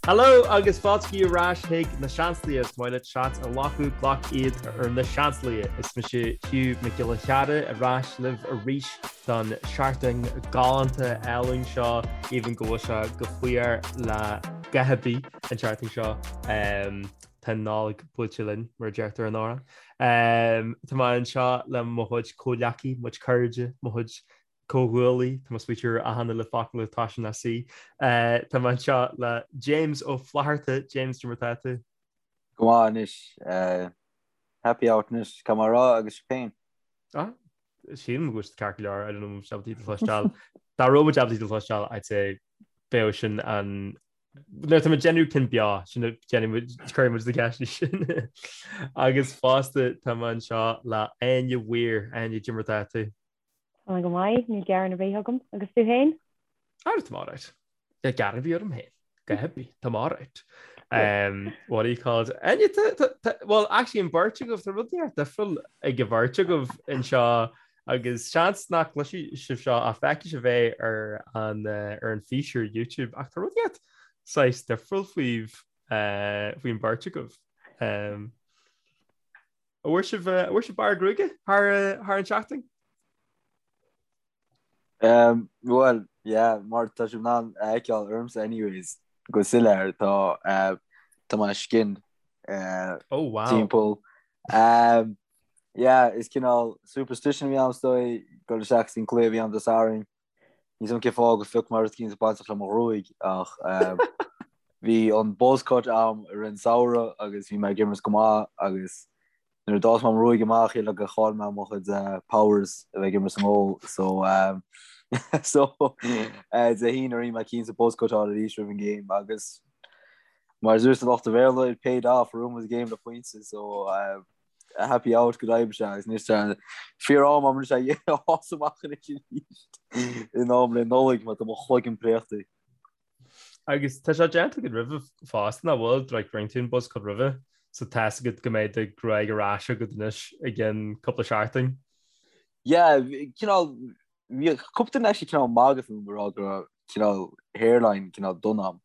Hello agus fáilte ar ais chuig Na Seansálaithe. Is maith leat seans a ghlacadh, glac iad ar Na Seansálaithe. Is mise Hugh Mac Giolla Chearra ar ais libh arís don seachtain galánta álainn seo, even go bhfuil sé go fuar le dhath ar bith an tseachtain seo. Tá an Nollaig buailte linn, mar a deirtear in amhrán. Tá mé anseo le mo chuid comhghleacaí, mo chuid cairde, mo chuid comhghuaillí, tá mé ag smaoitiú ar achan uile focal a thosaíonn le C. Tá mé anseo le James Ó Flatharta. James, cad é mar atá tú? Go maith anois. Happy out anois, caithfidh mé a rá, agus sibh féin? Ah, sílim go bhfuil siad ceart go leor, I don't know an bhfuil siad ábalta cloisteáil. Dá raibh muid ábalta cloisteáil, I'd say bheadh sin an Nuair atá muid ag déanamh cinn beo, sin a déanfaidh muid, cuirfidh muid na ceisteanna sin. Agus fosta tá mé anseo le Áine Weir. Áine, cad é mar atá tú? Tá mé go maith, níl gearán ar bith agam. Agus tú féin? Ah, tá mé alright. Níl gearán ar bith orm féin. Go happy, tá mé alright. Um, what do you call it? Áine, well, actually, an bheirt agaibh, tá rud inteacht difriúil ag an bheirt agaibh anseo agus seans nach gcloisfidh sibh seo ach feicfidh sibh é ar an, eh, ar an fís ar YouTube ach tá rud inteacht saghas difriúil faoibh, eh, faoin bheirt agaibh. Um, An bhfuair sibh an bhfuair sibh bearradh gruaige thar thar an tseachtain? Um, well, yeah, mar tá sibh in ann a fheiceáil ormsa anyways, go soiléir, tá uh, tá mé skinned uh, Oh wow. timpeall. Um, yeah, is cineál superstition a bhí ann is dóigh, dul isteach san cluiche a bhí ann Dé Sathairn. Níl 's agam cén fáth gur phioc mé rud eicínt bainteach le mo ghruaig ach bhí an buzz cut a'm i rith an samhradh agus bhí mé ag imirt go maith agus nuair a d'fhás mé mo ghruaig amach shíl mé gur chaill mé mo chuid powers a bheith ag imirt sa ngól so so Dé hAoine rinne mé cinnte buzz cut a fháil arís roimh an game agus mar a dúirt lucht an Bhéarla it paid off bhuaigh muid an game le pointe so happy out go deimhin sea agus anois tá fíor-am agam anois é a fhás amach anois arís in am le Nollaig mar tá mo chloigeann préachta. Agus tá sé déanta agat roimhe fosta nach bhfuil like rinne tú an buzz cut roimhe so tá 'fhios agat go mbeidh do ghruaig ar ais agat anois i gceann cúpla seachtain. Yeah, cineál Bhí cúpla duine actually cineál magadh fúm ag rá go raibh cineál hairline cineál dona a'm.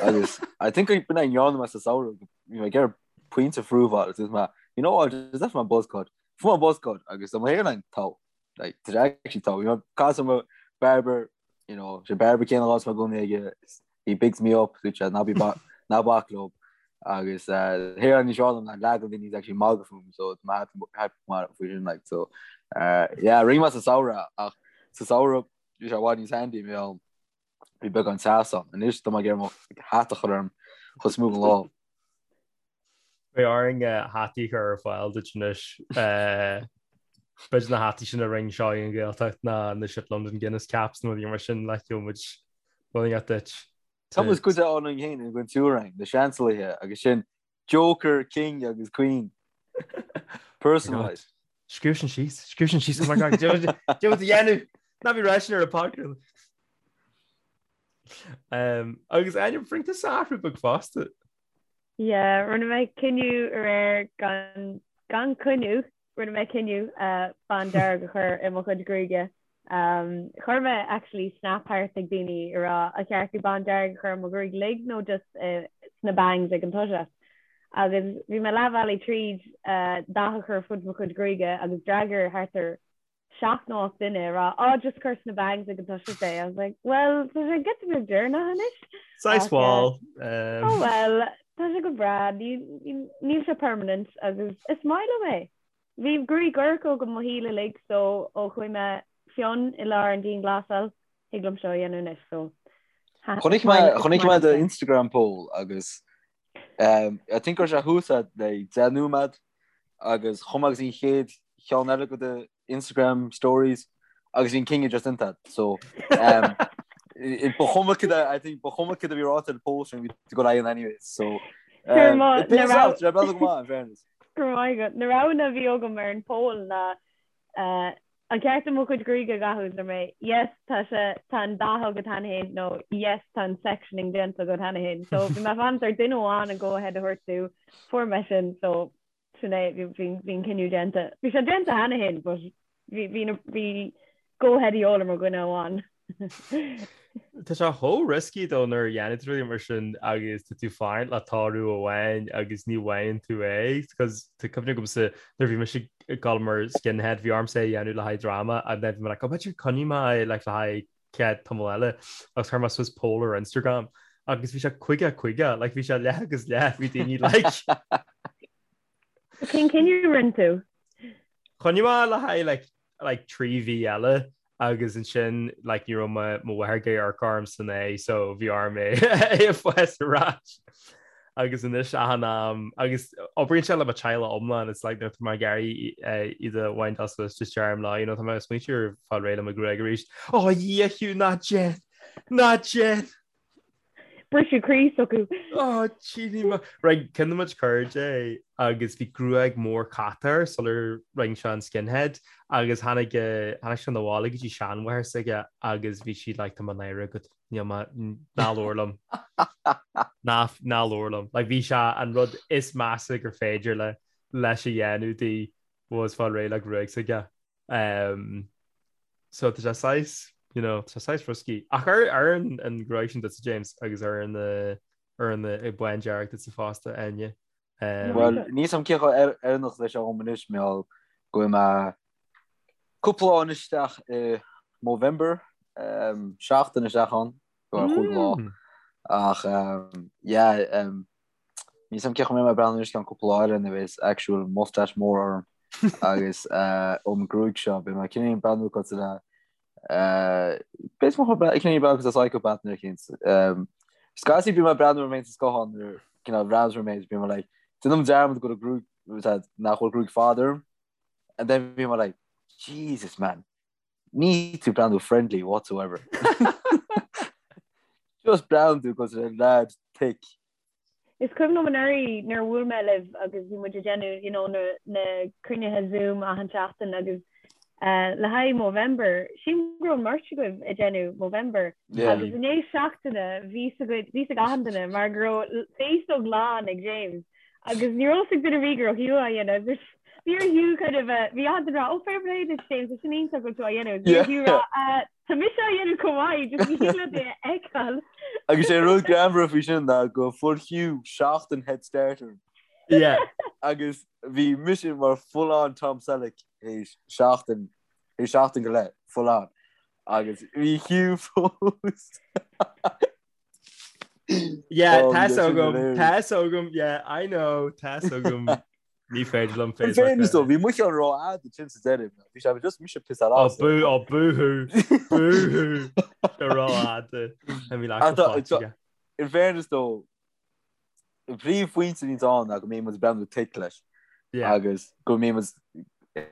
Agus I think b'in é a ndearna mé sa samhradh, bhí mé ag iarraidh pointe a phrúfáil agus dúirt mé, you know what, just left my buzz cut. Fuair mé buzz cut agus tá mo hairline togha. Like, tá sé actually togha. Bhí mé ag caint le mo barber, you know, sé barber céanna a bhíonns mé i gcónaí aige, he bigs me up, dúirt sé, ná bí ná bac leo. Agus hairline níos fearr liom ná leath de na daoine actually magadh fúm, so tá mé happy faoi sin, like, so, yeah, rinne mé sa samhradh, ach sa samhradh bhí sé i bhfad níos handy, bhí ann, bhí beagán teas ann. Anois tá mé ag iarraidh mo hat a chur orm chomh smooth an lá. Beidh orainn hataí a chur ar fáil duit anois. B'fhéidir na hataí sin a rinne seo an Ghaeltacht ná na Ship London Guinness caps nó rudaí mar sin le gheobhaidh muid rud inteacht duit. Tá muid cuid ann féin i gcuid tuairim, na Seansálaithe agus sin Joker, King agus Queen. Personalised. Scríobh sin síos, scríobh sin síos, oh my God, cad é a dhéanamh, ná bí ag rá sin ar an podcast. Agus Áine, rinne tusa athrú beag fosta. Yeah, rinne mé cinneadh aréir gan, gan coinne, rinne mé cinneadh uh, bándearg a chur i mo chuid gruaige. Um, chuir mé actually snap thart ag daoine ag rá ar cheart dom bándearg a chur i mo ghruaig uilig nó just uh, sna bangs ag an toiseacht. Agus bhí mé leath bhealaigh tríd uh, dath a chur fud mo chuid gruaige agus d'fhreagair thart ar 7 nó 8 duine ag rá oh just cuir sna bangs ag an toiseacht é. I was like well tá sé giota beag deireanach anois. Saghas wall. Oh well tá sé go breá níl sé permanent agus is maith liom é. Bhí gruaig dhorcha agam mo shaol uilig so ó chuaigh mé fionn i lár an dianghlasáil thig liom seo a dhéanamh anois so Chonaic mé chonaic mé do Instagram poll agus um, I think go raibh sé thuas le 10 nóiméad agus chuaigh mé go dtí an chéad cheann eile go do Instagram stories agus bhí an cinneadh just déanta so um, ba chuma cad I think ba chuma cad a bhí ráite ar post bhí tú go lean anyways so um, it pays out go maith in fairness. Go raibh maith agat. Na roghanna a bhí agam ar an poll ná uh, an ceart dom mo chuid gruaige a dhathú is mé yes tá sé tá an dath agat cheana féin nó yes tá an sectioning déanta agat cheana féin. So bhí mé ag fanacht ar duine amháin an go ahead a thabhairt domh fuair mé sin so sin é bhí bhí an cinneadh déanta. Bhí sé déanta cheana féin but bhí bhí bhí go ahead a dhíobháil ar mo dhuine amháin. Tá sé chomh risky though nuair a dhéanann tú rudaí mar sin agus tá tú fanacht le toradh amháin agus ní bhfaigheann tú é because tá cuimhne agamsa nuair bhí mise ag dul mar skinhead bhí ormsa é a dhéanamh le haghaidh dráma and then bhí mé like oh b'fhéidir coinneoidh mé é like le haghaidh chéad tamall eile agus chuir mé suas poll ar Instagram agus bhí sé 50 50 like bhí sé leath agus leath bhí daoine like Cén cinneadh a rinne tú? Choinnigh mé le haghaidh like like 3 mhí eile agus ansin like ní raibh mo mo mháthair ag amharc orm san é so bhí orm é é a fás ar ais. Agus anois achan am agus oibríonn sé le mo teaghlach iomlán it's like nuair atá mé ag iarraidh iad a wind suas just deirim leo you know tá mé ag smaointiú ar fáil réidh le mo ghruaig arís. Ó a Dhia Hugh ná déan! Ná déan! Briseadh croí s'acu. Ó tchíní mo. Right, ceann de mo chuid cairde agus bhí gruaig mór cata air sular rinne sé an skinhead agus tháinig tháinig sé 'na bhaile go dtí seanmháthair s'aige agus bhí sí like tá mé náirithe agat níl mé ná labhair liom. Ná ná labhair liom. Like bhí sé an rud is measa gur féidir le leis a dhéanamh di was fáil réidh le gruaig s'aige. Um, so tá sé saghas, you know, tá sé saghas risky. Ach ar ar an an gruaig sin duitse James agus ar an uh, ar an uh, bándearg duitse fosta Áine. Um, Well, níl a fhios a'm cé chomh oiriúnach is a bheidh sé dhom anois mar gheall go bhfuil mé cúpla lá anois isteach i Movember, um, seachtain isteach ann, go ar chúig lá. Ach um, yeah, um, Níl a fhios a'm cé chomh mbeidh mé ag breathnú anois ceann cúpla lá eile nuair a bheas actual mustache mór orm agus ón gruaig seo beidh mé cineál ag breathnú cosúil le beidh mé cineál ag breathnú cosúil le psychopath nuair eicínt. Scaití bím ag breathnú orm féin sa scáthán nuair cineál bhreathnaím orm féin bím like déanaim dearmad go bhfuil gruaig nach bhfuil gruaig fada orm and then bím like Jesus man Níl tú ag breathnú friendly whatsoever. Just breathnaíonn tú cosúil le lad thick. Is cuimhin liom anuraidh nuair a bhuail mé libh agus bhí muid ag déanamh you know na na cruinnithe Zoom achan seachtain agus eh, le haghaidh Movember, sílim go raibh an mbeirt agaibh ag déanamh Movember Yeah. agus i ndiaidh seachtaine bhí a fhios agaibh bhí a fhios ag achan duine mar go raibh féasóg lán ag James Agus ní raibh a fhios ag duine ar bith go raibh Hugh á dhéanamh agus bhí ar Hugh kind of a bhí achan duine ag rá oh fair play duit James tá sin iontach go bhfuil tú á dhéanamh. Bhí ar Hugh rá "Uh, tá mise á dhéanamh chomh maith just ní thig leat é a fheiceáil. Agus sé rud greannmhar faoi sin ná go fuair Hugh seachtain head start orm. Yeah. Agus bhí mise mar full on Tom Selleck théis seachtain théis seachtain go leith full on. Agus bhí Hugh fós. Yeah, Oh, tá a fhios agam, tá a fhios agam, yeah, I know, tá a fhios agam. Ní féidir liom In fairness though, bhí mo cheann rófhada sin sa deireadh. Bhí sé just mise piss-áil Oh, as. bú, oh, boo-hoo, boo-hoo, sé rófhada. Tá mé leath Ach tá- tá- In fairness though, an príomhphointe a bhíonns ann ná go mbíonn muid ag breathnú thick leis Yeah. agus go mbíonn muid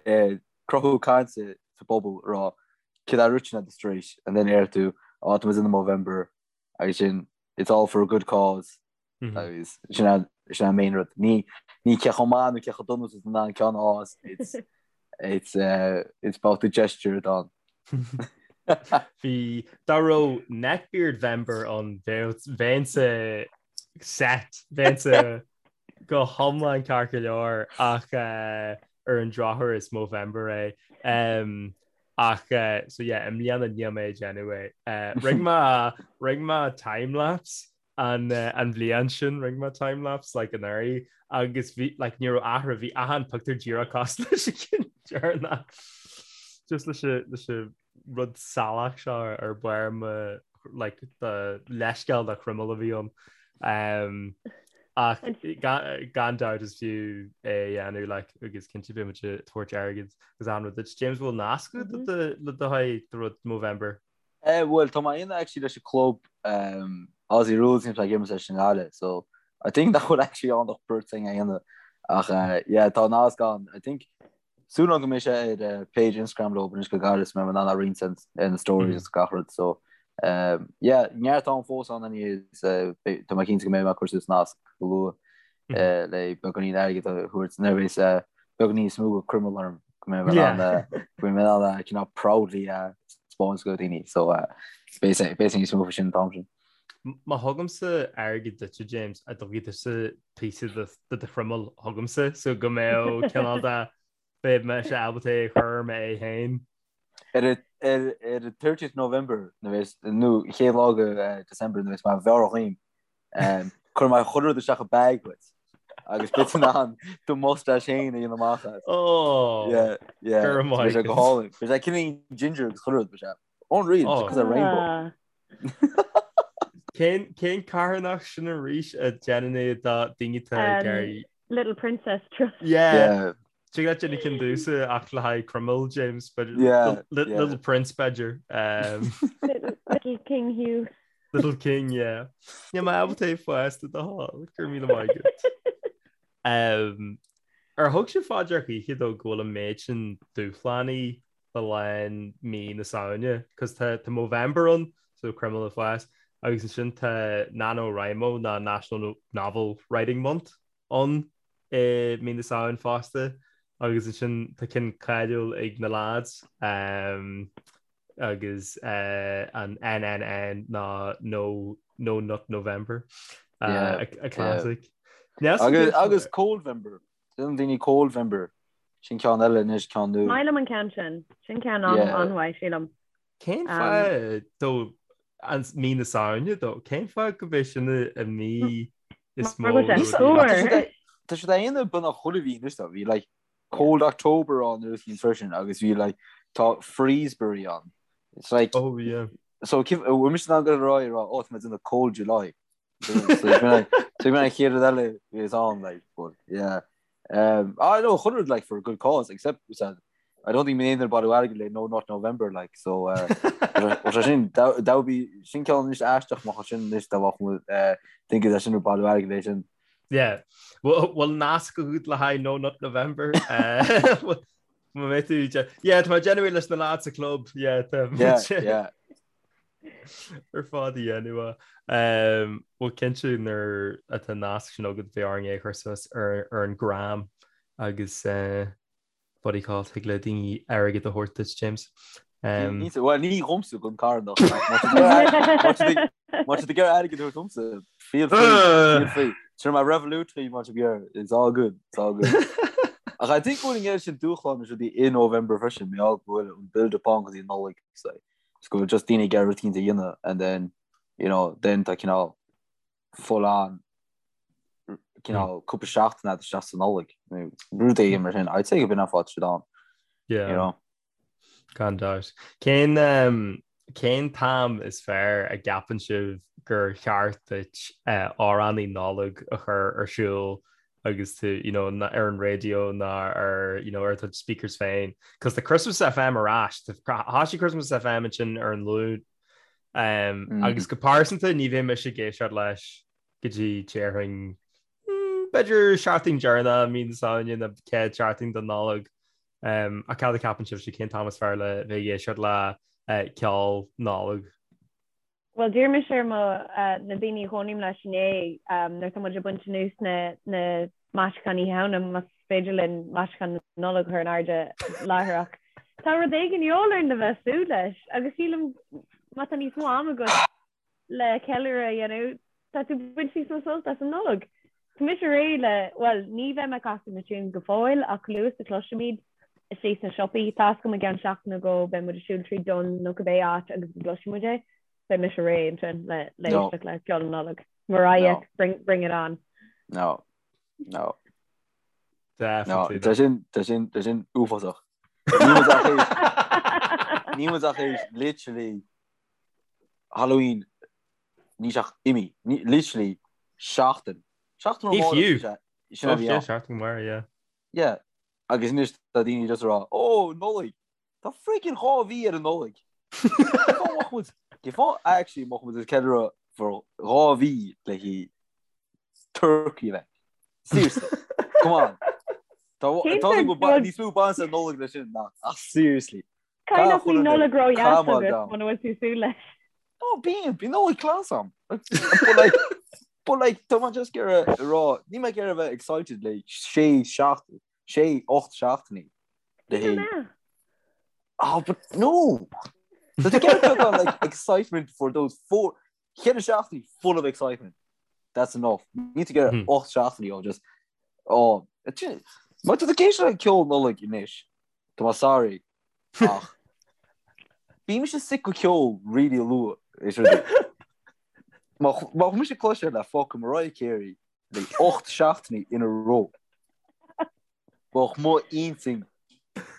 ag cruthú cainte sa bpobal ag rá céard a rinne tú tar éis and then deir tú á tá muid in Movember agus sin it's all for a good cause agus sin an sin an main rud. Ní ní cé chomh maith nó cé chomh dona is an an ceann ás it's it's uh, it's about the gesture atá ann. Bhí dá raibh Neckbeard Vember ann bheinnse set bheinnse go hiomlán ceart go leor ach uh, ar an drochuair is Movember é. Um, Ach so yeah, i mbliana níl mé ag déanamh é. Rinne mé rinne mé timelapse an an bhliain sin rinne mé timelapse like anuraidh agus bhí like ní raibh athrú bhí achan pictiúr díreach cosúil leis an gceann deireanach. Just leis an leis an rud salach seo ar barr mo like the leithscéal de chroiméal a bhí ann. Um, ach gan dabht is fiú é a dhéanamh like, agus cinnte beidh muid ag tabhairt airgid agus an rud duit. James bhfuil nasc agat le do le do haghaidh do rud Movember? Eh, bhuel, tá mé in actually leis an club um, Aussie Rules níl ag imirt leis an nGaillimh, so I think nach bhfuil actually ann ach beirt againn a dhéanamh. Ach uh, yeah, tá nasc ann. I think Súil agam go mbeidh sé ar page Instagram leo anois go gairid is mbeidh mé in ann a roinnt ar na stories agus gach rud so yeah neart am fós ann anyways tá mé cinnte go mbeidh mé ag cur suas nasc go luath le beagáinín airgid a thabhairt nuair a bheas beagáinín níos mó de chroiméal orm go mbeidh mé in ann go mbeidh mé in ann cineál proudly a spáint go daoine so beidh beidh níos mó faoi sin an t-am sin. Má thugaimse airgead duitse James, an dtabharfaidh tusa píosa de do chroiméal chugamsa so go mbeadh cineál de beidh mise ábalta é a chur ar m'aghaidh féin. Ar Ar ar 30th November nó chéad lá de December nuair a bheas mé mheabhrach dhíom cuirfidh mé chuile rud isteach i bag duit agus beidh tú in ann do mustache féin a dhéanamh amach as. Oh! Yeah, yeah. Go raibh maith Beidh sé go agat. hálainn. Beidh sé cineál ginger agus chuile rud, beidh sé unreal, Oh. because of rainbow. Ah. Cén cén carthanacht sin arís a déanann é do daoine atá ag Um, iarraidh Little Princess Trust. Yeah. Yeah. Tig leat déanamh ceann domhsa ach le haghaidh Cromail, James, b'fhéidir. Yeah, Little, yeah. Little Prince, b'fhéidir. Um, Little, little King Hugh. Little King, yeah. Níl mé ábalta é fosta do thoil, go raibh míle maith agat. Um, ar thug sibh fá dear choíche though go bhfuil an méid sin dúshlánaí le linn mí na Samhna, cos tá tá Movember ann, so Croimeal ag fás, agus ansin tá NaNoWriMo ná National Novel Writing Month ann i mí na Samhain fosta agus ansin tá ceann cáiliúil ag na lads agus an NNN ná No No Nut November a classic. Agus agus Coldvember Déanann daoine Coldvember sin ceann eile anois ceann nua. Maith liom an ceann sin. Sin ceann an-mhaith sílim. Cén fáth though an mí na Samhna though? Cén fáth go b'é sin an mí is mó? Tá siad á dhéanamh beagnach chuile mhí anois though. Bhí like Cold October ann nuair a freisin agus bhí like tá Freezeberry ann. It's like Oh yeah. So bhfuil mise in ann go rá rá ó tá mé ag déanamh Cold July. So bhí an chéad rud eile is ann like but yeah. Um, I know chuile rud like for a good cause except said, I don't think mé aon bailiú airgid le No Nut November like so uh, sin that would be sin ceann anois aisteach má sin anois dá bheadh uh, think is sin bailiú airgid le sin. Yeah. Well, well nasc agat le haghaidh No Nut November. Uh, Má mé tú Yeah, tá genuine leis na lads sa club. Yeah, tá Yeah, yeah. ar fad a dhéanamh. Bhuel cinnte nuair atá an nasc sin agat beidh orainn é a chur suas ar ar an gram agus what do you call it thig le daoine airgead a thabhairt duit James. Bhuel ní dhomsa don carthanacht Má tá tú ag iarraidh airgead a thabhairt domsa feel free feel free. Sure my Revolut má tá tú ag iarraidh it's all good it's all good. Ach I think go bhfuil an oiread sin dúshlán is rudaí i November freisin mar gheall go bhfuil an build up ann go dtí an Nollaig so. Is go bhfuil just daoine ag iarraidh rud éicint a dhéanamh and then you know then tá cineál full on cineál cúpla seachtain agat isteach sa Nollaig nó rud éigin mar sin. I'd say go b'in an fáth siad ann. Yeah. You know? Gan dabht. Cén um, cén t-am is fearr a gceapann sibh gur cheart duit uh, amhránaí Nollag a chur ar siúl agus tú you know, ar an raidió ná ar you know, ar do speakers féin. Cos tá Christmas FM ar ais, thosaigh Christmas FM ansin ar an Luan um, mm. agus go pearsanta ní bheidh mise ag éisteacht leis go dtí déarfainn mm, b'fhéidir seachtain deireanach mí na Samhna nó chéad seachtain den Nollaig. Um, ach cad a cheapann sibhse cén t-am is fearr le bheith ag éisteacht le uh, ceol Nollag? Bhuel, d'iarr mise ar mo, na daoine a chónaím leis inné, nuair atá muid ag baint anuas na na maisiúcháin Oíche Shamhna, más féidir linn maisiúcháin na Nollag a chur in airde láithreach. Tá rud éigin de dhíobháil orainn le bheith ag súil leis, agus sílim má tá níos mó ama agat le ceiliúradh a dhéanamh, tá tú ag baint níos mó sult as an Nollaig. Tá mise réidh le, bhuel, ní bheidh mé ag casadh na tunes go fóill ach chomh luath is a chloisfimid istigh sna siopaí, tá 'fhios agam i gceann seachtain nó dhó beidh muid ag siúl tríd Dunnes nó cibé áit agus go gcloisfidh muid é, beidh mise réidh ansin le le No. éisteacht le ceol na Nollag. Mariah, No. bring, bring it on. No. No. No. Definitely. Tá sin, tá sin, tá sin uafásach. Ní muid ach éis, ní muid ach éis literally Halloween Níl sé ach imithe. Literally seachtain. Seachtain Ní fiú. Sin a bhí ann. Seachtain mar, yeah. Yeah. Agus anois tá daoine just ag rá, ó, Nollaig! Tá freaking 2 mhí ar an Nollaig! Cén fáth actually mbeadh muid ag ceiliúradh for 2 mhí le haghaidh turkey a bheith? Seriously. Come on. Tá tá níos mó baint ag Nollaig leis sin ná ach seriously. Caithfidh nach bhfuil Nollaig ró-dheas agat muna bhfuil tú ag súil leis. No, bíonn, bíonn Nollaig class agam. But like, but like, tá mé just ag iarraidh a rá, níl mé ag iarraidh a bheith excited le sé seacht, sé, ocht seachtainí. Le haghaidh. Oh, but no! So to get beagán like excitement for those four, ceithre seachtainí full of excitement. That's enough. Níl tú ag iarraidh ocht seachtainí ó just, oh, má tá tú ag éisteacht le ceol Nollaig anois, Tá mé sorry ach. Bíonn mise sick go ceol really luath is rudaí. Má má chuir mise cloisteáil le fucking Mariah Carey like 8 seachtainí in a row. Bheadh mo intinn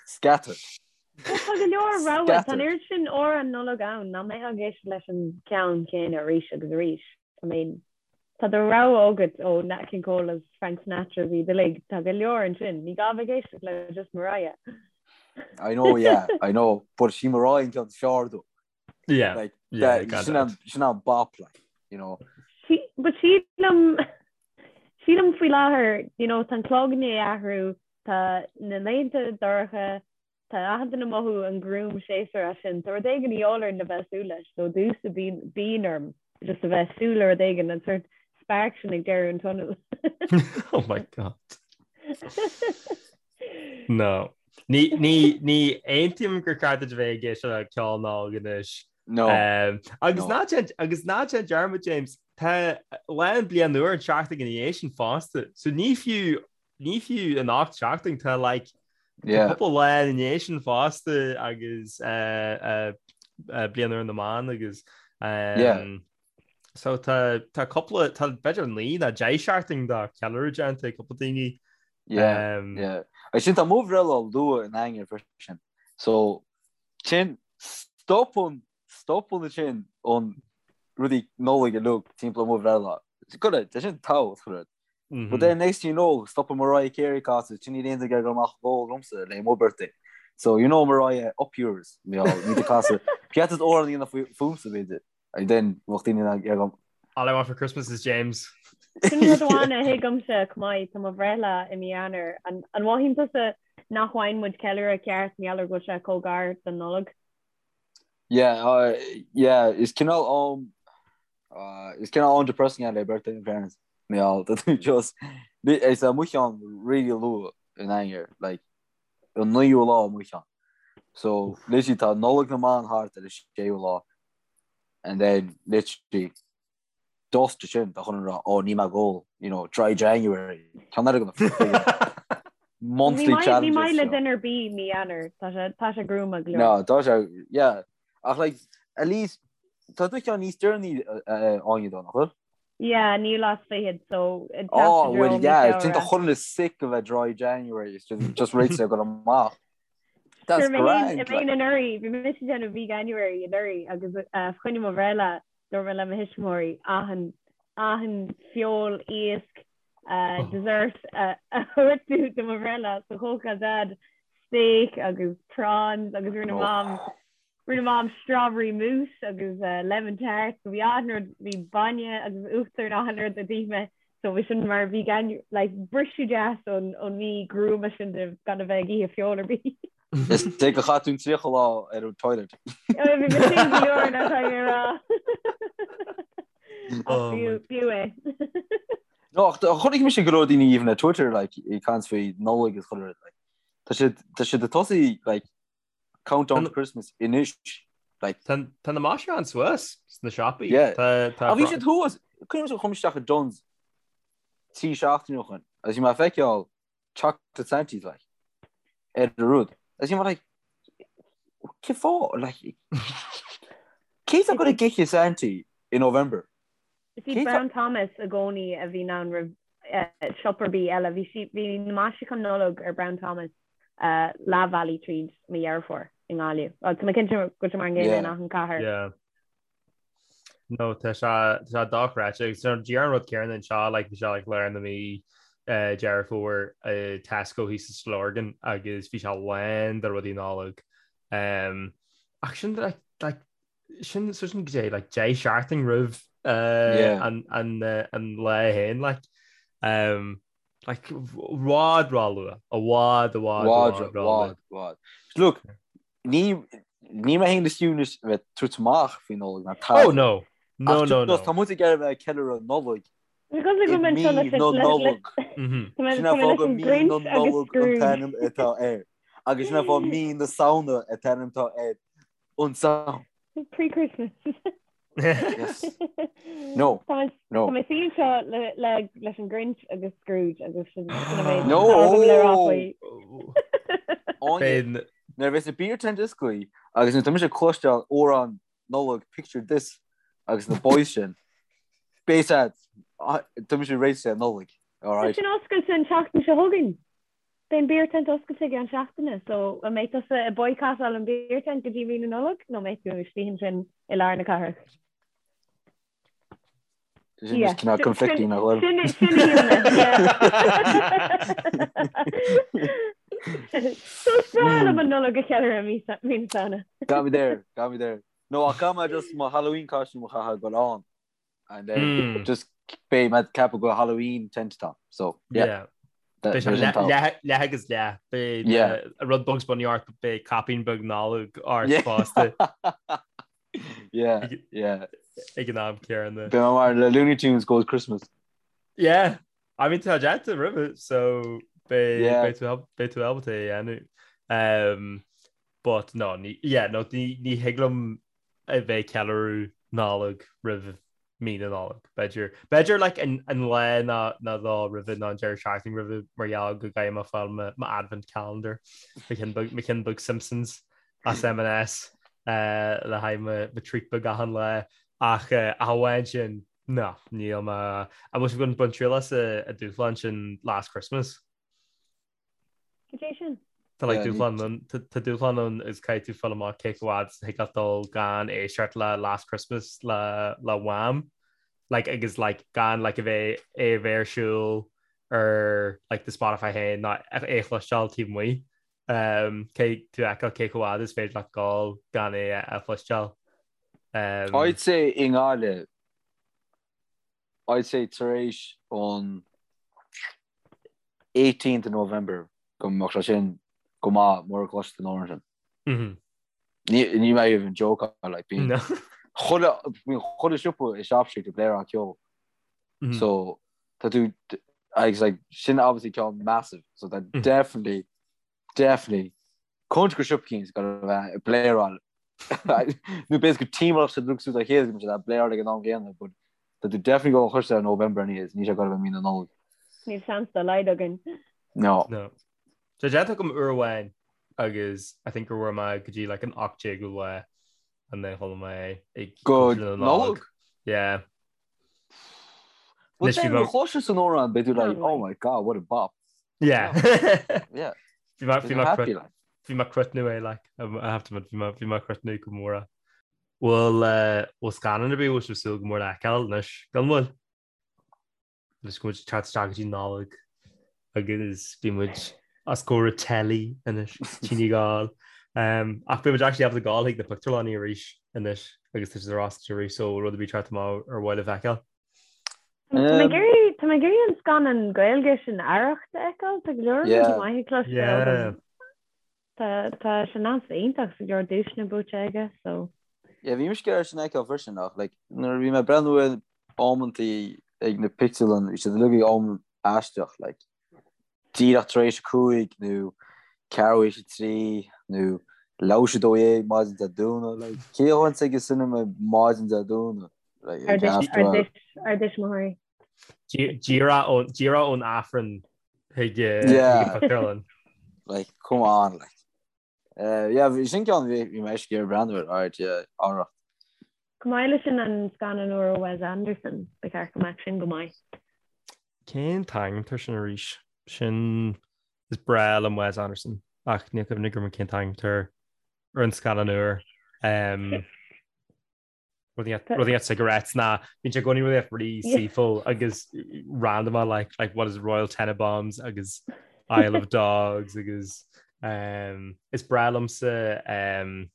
scattered. Tá go leor rogha, tá an oiread sin amhrán Nollag ann nach mbeifeá ag éisteacht leis an ceann céanna arís agus arís. I mean, tá do rogha agat ó Nat King Cole agus Frank Sinatra is iad uilig, tá go leor ansin, ní gá bheith ag éisteacht le just Mariah. I know, yeah, I know, but sí Mariah an ceann is fearr though. Yeah, Like, yeah, that, gan sin dabht. an, sin an bop, like, you know. Sí, but sílim, sílim faoi láthair, you know, tá an clog i ndiaidh athrú, tá na laethanta dorcha, Tá achan duine ag mothú an gruaim séasúr as sin. Tá rud éigin de dhíobháil orainn le bheith ag súil leis. So domhsa bíonn bíonn orm just a bheith ag súil le rud éigin, an sort spark sin ag deireadh an tunnel. Oh my God. No. Ní ní ní aontaím gur ceart duit a bheith ag éisteacht le ceol Nollag anois. No. Um, agus No. ná déan agus ná déan dearmad James, tá lá an bliain úr an seachtain ina dhiaidh sin fosta. So ní fiú Ní fiú an 8 seachtain tá like Yeah. cúpla lá ina dhiaidh sin fosta agus uh, uh, uh, bliain úr na mban agus um, Yeah. so tá tá cúpla tá b'fhéidir 9 nó 10 seachtain de ceiliúradh déanta ag cúpla daoine. Yeah, Um, yeah. Agus sin tá mo bhreithlá luath in Eanáir freisin. So sin stopann stopann sin an rudaí Nollag uilig timpeall mo bhreithlá. Go tá sin tábhachtach. But then next thing you know, stopann Mariah Carey casadh, sin níl aon duine ag dul amach ag ól liomsa le mo birthday. So you know Mariah, up yours, you know, ní do casadh. Ceart is amhrán a dhéanamh fúmsa b'fhéidir. And then bheadh daoine ag agam. All I want for Christmas is James. Sin rud amháin a thuigimse chomh maith, tá mo bhreithlá i mí Eanáir. An mothaíonn tusa nach bhfaigheann muid ceiliúradh ceart mar gheall ar go bhfuil sé chomh gar don Nollaig? Yeah, uh, yeah, is cineál um, uh, is cineál an-depressing é le birthday in fairness. Mé all tá tú just is é mo cheann really luath in Eanáir, like an naoú lá mo cheann. So literally tá Nollaig na mban thart ar an séú lá and then literally just sin tá chun rá ó ní mé ag ól, you know, dry January. Ceann eile go monthly Ní maith challenges. le duine ar bith mí Eanáir, tá sé tá sé gruama go leor. No, tá sé, yeah. Ach like, at least, tá do cheann níos deireanaí Áine though, nach bhfuil? Yeah, naoú lá is fichead, so ag teacht Oh, i dtreo well, mí yeah, sin tá Feabhra. chuile dhuine sick a bheith dry January, it's just, just réiteach ag dul amach. That's Sure, mé féin grand, mé féin like. anuraidh, bhí mise ag déanamh Veganuary anuraidh agus uh, fá choinne mo bhreithlá dúirt mé le mo thuismitheoirí achan achan feoil, iasc, uh, dessert uh, a thabhairt do do mo bhreithlá so chócaráil Dad steak agus prawns agus rinne Oh. Mam Rinne Mam strawberry mousse agus lemon tart so bhí achan rud, bhí bainne agus uachtar and achan rud a d'ith mé so bhí sin mar vegan like briseadh deas ón ón mí gruama sin de gan a bheith ag ithe feoil ar bith. Is é gur chaith tú an 30 lá ar an toilet. Bhí mé sin go leor nach raibh mé a rá. Ach Oh my b'fhiú b'fhiú é. No, ach chonaic mise go leor daoine even ar Twitter like ag caint faoi Nollaig is chuile rud like. Tá siad tá siad ag tosaí like Countdown to Christmas anois. Like. Tá na maisiúcháin suas sna siopaí. Yeah. Tá Ach bhí siad thuas, cuimhin liom chuaigh mé isteach i Dunnes 3 seachtaine ó shin agus bhí mé ag feiceáil chocolate Santies like ar an rud. Agus bhí mé like cén fáth like cé atá ag goil ag ithe Santy i November? Is iad Brown Thomas i gcónaí a bhíonn ann roimh siopa ar bith eile. Bhí sí, bhí na maisiúcháin Nollag ar Brown Thomas leath bhealaigh tríd mí Dheireadh Fómhair i nGaillimh. Bhuel, tá mé cinnte go bhfuil sé mar an gcéanna in achan cathair. Yeah. No, tá sé tá sé dochreidte agus díreach an rud céanna anseo like bhí sé like lár na mí Deireadh Fómhair i Tesco thíos sa Lorgain agus bhí sé lán de rudaí Nollag. Um, ach sin like, like sin so sin goidé like 10 seachtain roimh uh, an, an, uh, an lá féin like um, like i bhfad ró-luath i bhfad i bhfad i bhfad bhfad bhfad Look ní ní mé féin is fiú bheith tabhairt amach faoi Nollaig ná tada. Oh no no no no Tá muid ag iarraidh bheith ag ceiliúradh Nollaig Because like i mí na Nollag. Sin an fáth gur mí na Nollag an t-ainm atá air. Agus sin an fáth mí na Samhna an t-ainm atá air. An Samhain. Pre-Christmas. Yes. No. Tá No. mé suí anseo le- le- leis an Grinch agus Scrooge agus sin sin an méid No. atá agam le rá faoi. Áine, Beidh. Nuair a bheas na beer tent oscailte agus nuair atá mise ag cloisteáil amhrán Nollag Picture This agus na boys sin, beidh a fhios a'd, tá mise réidh le Nollaig, Tá alright? sin oscailte an tseachtain seo chugainn. Beidh an beer tent oscailte i gceann seachtaine, so an mbeidh tusa ag boycottáil an beer tent go dtí mí na Nollag nó an mbeidh tú istigh ansin i lár na cathrach? Sin just cineál conflicting nach bhfuil. Sin sin a shíl mé, yeah. So is breá liom an Nollaig a cheiliúradh mí mí na Samhna. Got me there, got me there. No, ach caithfidh mé just mo Halloween costume a chaitheamh go ann. And then mm. just beidh mé ag ceapadh go Halloween tent atá. So, yeah. yeah. Beidh sé leath agus leath. Beidh rud Bugs Bunny ort beidh caipín beag Nollag ort fosta. Yeah, yeah. Ag an am céanna. Beidh mé mar le Looney Tunes goes Christmas. Yeah, I mean tá déanta roimhe so beidh tú ábalta é a dhéanamh. Um, but no, ní, yeah, no, ní, ní thig liom a bheith ag ceiliúradh Nollag roimh mí na Nollag. B'fhéidir, b'fhéidir like an, an lá ná, ná dó roimhe ná an deireadh seachtaine roimhe mar gheall go gcaithfidh mé fáil mo, mo advent calendar, mo cheann beag, mo cheann beag Simpsons as M&S eh, le haghaidh mo, mo treat beag achan lá. Ach eh, ach amháin sin, no, níl mé, an bhfuil sibh ag baint triail as an dúshlán sin Last Christmas? Cad é sin? Tá like dúshlán ann, tá dúshlán ann is caithfidh tú fáil amach cé chomh fhad is a thig leat dul gan éisteacht le Last Christmas le le Wham! Like agus like gan like a bheith é a bheith ar siúl ar like do Spotify féin ná é a chloisteáil taobh amuigh. Um, caithfidh tú a fheiceáil cé chomh fhad is féidir leat dul gan é a chloisteáil. Um, I'd say i nGaillimh I'd say tar éis an 18th of November go mbeadh sé sin go maith mura gcloisfidh tú an amhrán sin. Mm-hmm. Ní ní mé even joke like bíonn No. chuile bíonn chuile siopa i Shop Street ag bléaráil ceol. Mm-hmm. So tá tú agus like sin obviously ceann massive so that Mm. definitely Definitely. Cinnte go siopa eicínt go bheith ag bléaráil. Nó b'fhéidir go timpeallacht sa drug suit a chéile go mbeidh bléaráil ag an am gcéanna, but tá tú definitely go chur ar November anyways, níl sé ag gabháil a bheith mí na Nollag. Níl seans dá laghad againn. No. No. Tá déanta agam uair amháin agus I think gur bhfuair mé go dtí like an 18ú lá and then chuala mé ag Go Nollag? Yeah. But then chloiseann tú an amhrán beidh tú like oh my god what a bop. Yeah. Yeah. Bhí mé bhí mé happy like. Bhí mé cruthnú é like I have to admit bhí mé bhí mé cruthnú go mór. Bhfuil eh, bhfuil scannán ar bith bhfuil sibh súil go mór le feiceáil anois gan mhoill? Anois go bhfuil muid ag teacht isteach go dtí Nollaig agus bhí muid os comhair an telly anois tine gáil. Um, ach beidh muid actually ábalta gabháil chuig na pictiúrlanna arís anois agus tá siad ar oscailt arís so rud ar bith teacht amach ar mhaith libh a fheiceáil. Tá mé ag iarraidh tá mé ag iarraidh an scannán Gaeilge sin Arracht a fheiceáil, tá go leor rudaí maithe cloiste Yeah. agam. Tá tá sé annamh iontach tá go leor duaiseanna buaite aige so. Yeah, bhí mise ag iarraidh sin a fheiceáil freisin ach like nuair a bhí mé ag breathnú ar amantaí ag na pictiúrlann bhí siad uilig ag am aisteach like díreach tar éis a 5 nó ceathrú théis a 3 nó leathuair théis a 12 maidin Dé Domhnaigh like cé a théann chuig an cinema maidin Dé Domhnaigh like Ar ár ár dtuismitheoirí. Díreach ón díreach ón Aifreann chuig eh, Yeah. chuig an pictiúrlann. like come on like Eh, yeah, bhí sin ceann bhí bhí mé ag iarraidh breathnú air, alright, yeah, Arracht. Chomh maith leis sin an scannán úr ó Wes Anderson, ba cheart go mbeadh sin go maith. Cén t-ainm air sin arís? Sin is breá liom Wes Anderson ach níl cuimhne agam cén t-ainm air ar an scannán úr. Um, Rudaí at cigarettes ná bíonn sé i gcónaí rudaí really saoithiúil agus random like like what is Royal Tenenbaums agus Isle of Dogs agus um, is breá liomsa um,